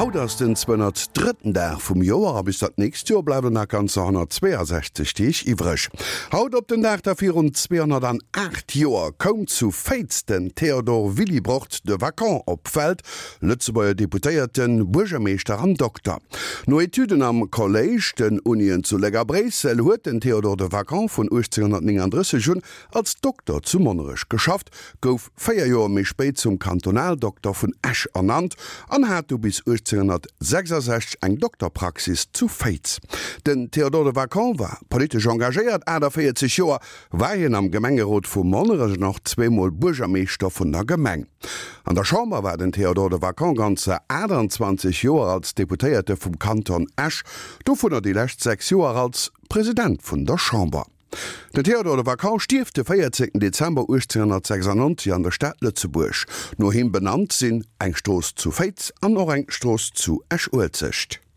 Haut ass den 203. Dag vum Joer a bis dat nächst Joer bleiwen nach ganzer 162 Deeg iwwreg. Haut op den Dag da virun 208 Joer koum zu Féiz den Théodore Willibrord de Vacon op d'Welt, Lëtzebuerger Deputéierten, Buergermeeschter an Dokter. No Etüden am Kolléisch, den Unien zu Léck a Bréissel huet den Théodore de Vacon vun 1839 un als Dokter zu Monnerech geschafft, gouf 4 Joer méi spéit zum Kantonaldokter vun Esch ernannt an hat du bis 1866 eng Dokterpraxis zu Féiz. Den Théodore de Vacon war politesch engagéiert, 48 Joer war hien am Gemengerot vu Monnerech an och zweemol Buergermeeschter vun der Gemeng. An der Chamber war den Théodore de Vacon ganzer 28 Joer als Deputéierte vum Kanton Esch, dovunner déi lescht 6 Joer als President vun der Chamber. Den Théodore de Vacon stierft de 14 Dezember 1896 an der Stad Lëtzebuerg. No him benannt sinn eng Strooss zu Féiz an och eng Strooss zu Esch-Uelzecht.